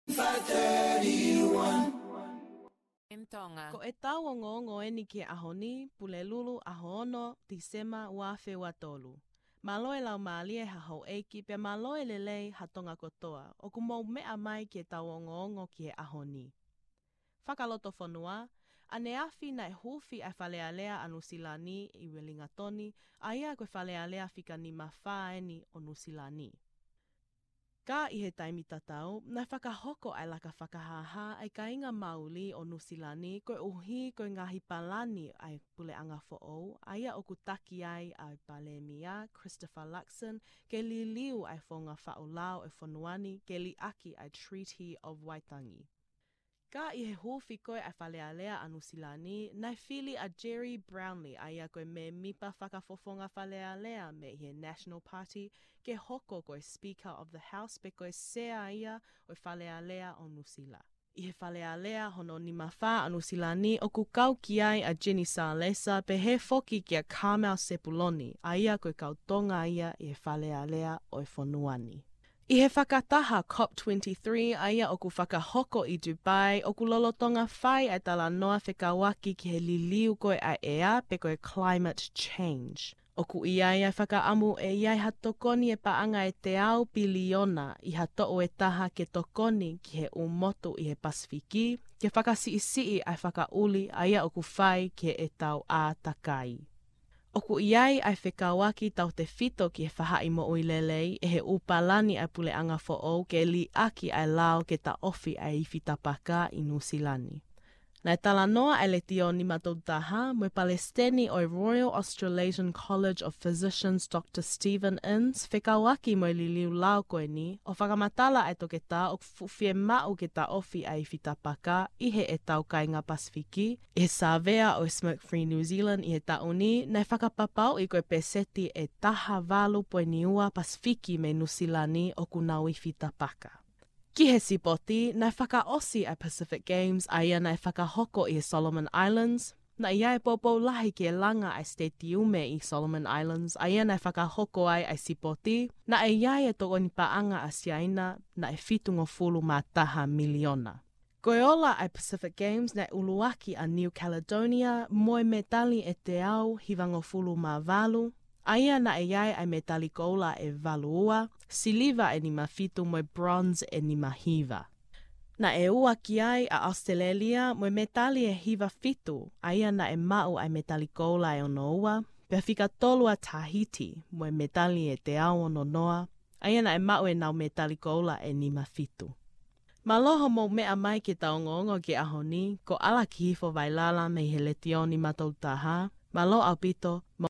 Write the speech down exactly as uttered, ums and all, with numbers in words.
five thirty-one. M Tonga. Ko ʻetau ongoongo eni ki he ʻaho ni, Pulelulu, ʻaho ono, Tīsema, ua afe ua tolu. Mālō e laumālie ha houʻeiki, pea mālō e lelei ha Tonga kotoa ʻoku mou meʻa mai ki heʻetau ongoongo ki he ʻaho ni. Fakalotofonua, ʻaneafi naʻe huufi ʻa e Fale Alea ʻa Nuʻusila ni ʻi Uelingatoni, ʻa ia ko e Fale Alea fika nima fā eni ʻo Nuʻusila ni. Ka ʻi he taimi tatau, naʻe fakahoko ʻa e laka fakahāhā ʻa e kāinga Māori ʻo Nuʻusila ni koeʻuhi ko e ngaahi palani ʻa e puleʻanga foʻou, ʻa ia ʻoku taki ai ʻa e Palēmia Christopher Luxon ke liliu ʻa e founga faʻu lao ʻo e fonua ni ke liʻaki ʻa e Treaty of Waitangi. Ka ʻi he huufi ko ē ʻa e Fale Alea ʻa Nuʻusila ni, naʻe fili ʻa Gerry Brownlee, ʻa ia ko e mēmipa fakafofonga Fale Alea mei he National Party, ke hoko ko e Speaker of the House pe ko e Sea ia ʻo e Fale Alea ʻo Nuʻusila. ʻI he Fale Alea hono nima fā ʻa Nuʻusila ni ʻoku kau ki ai ʻa Jenny Salesa pehē foki kia Carmel Sepuloni, ʻa ia ko e kau Tonga ia ʻi he Fale Alea ʻo e fonua ni. ʻI he fakataha COP twenty-three ʻa ia ʻoku fakahoko ʻi Dubai, ʻoku lolotonga fai ʻa e talanoa fekauʻaki ki he liliu ko ē ʻa e ʻea pe ko e climate change. ʻOku ʻi ai ʻa e fakaʻamu ʻe ʻi ai ha tokoni ʻe paʻanga ʻe teau piliona ʻi ha toʻu ʻe taha ke tokoni ki he ʻū motu ʻi he Pasifiki, ke fakasiʻisiʻi ʻa e fakaʻuli ʻa ia ʻoku fai ki heʻetau ʻātakai. ʻOku ʻi ai ʻa e fekauʻaki tautefito ki he faʻahi moʻui lelei ʻe he ʻū palani ʻa e puleʻanga foʻou ke liʻaki ʻa e lao ke taʻofi ʻa e ifi tapaka ʻi Nuʻusila ni. Naʻe talanoa ʻa e Letiō nima tolu taha mo e Palesiteni ʻo e Royal Australasian College of Physicians, Doctor Stephen Ince, fekauʻaki mo e liliu lao ko eni, ʻo fakamatala ʻa e toketā ʻoku fuʻu fiemaʻu ke taʻofi ʻa e ifi tapaka ʻi heʻetau kāinga Pasifiki. ʻI he sāvea ʻo e Smoke Free New Zealand ʻi he taʻu ni, naʻe fakapapauʻi ko e peseti ʻe taha valu poini ua Pasifiki mei Nuʻusila ni ʻoku nau ifi tapaka. Ki he sipoti, naʻe fakaʻosi ʻa e Pacific Games ʻa ia naʻe fakahoko ʻi he Solomon Islands. Naʻe ʻi ai e poupou lahi ke langa ʻa e sitetiume ʻi Solomon Islands, ʻa ia naʻe fakahoko ai ʻa e sipoti. Naʻe ʻi ai e tokoni paʻanga ʻa Siaina, naʻe fitungofulu mā taha miliona. Ko e ola ʻa e Pacific Games naʻe ʻuluaki ʻa New Caledonia mo e mētali ʻe teau hivangofulu mā valu, ʻa ia naʻe ʻi ai ʻa e mētali koula ʻe valu ua, siliva ʻe nima fitu mo e bronze ʻe nima hiva. Naʻe ua ki ai ʻa ʻAositelēlia mo e mētali ʻe hiva fitu, ʻa ia naʻe maʻu ʻa e mētali koula ʻe ono ua, pea fika tolu ʻa Tahiti mo e mētali ʻe teau ono noa, ʻa ia naʻe maʻu ʻenau mētali koula ʻe nima fitu. Mālō hoʻomou meʻa mai ki heʻetau ongoongo ki he ʻaho ni, ko ʻAlakihifo Vailala mei he Letiō nima tolu taha, mālō ʻaupito,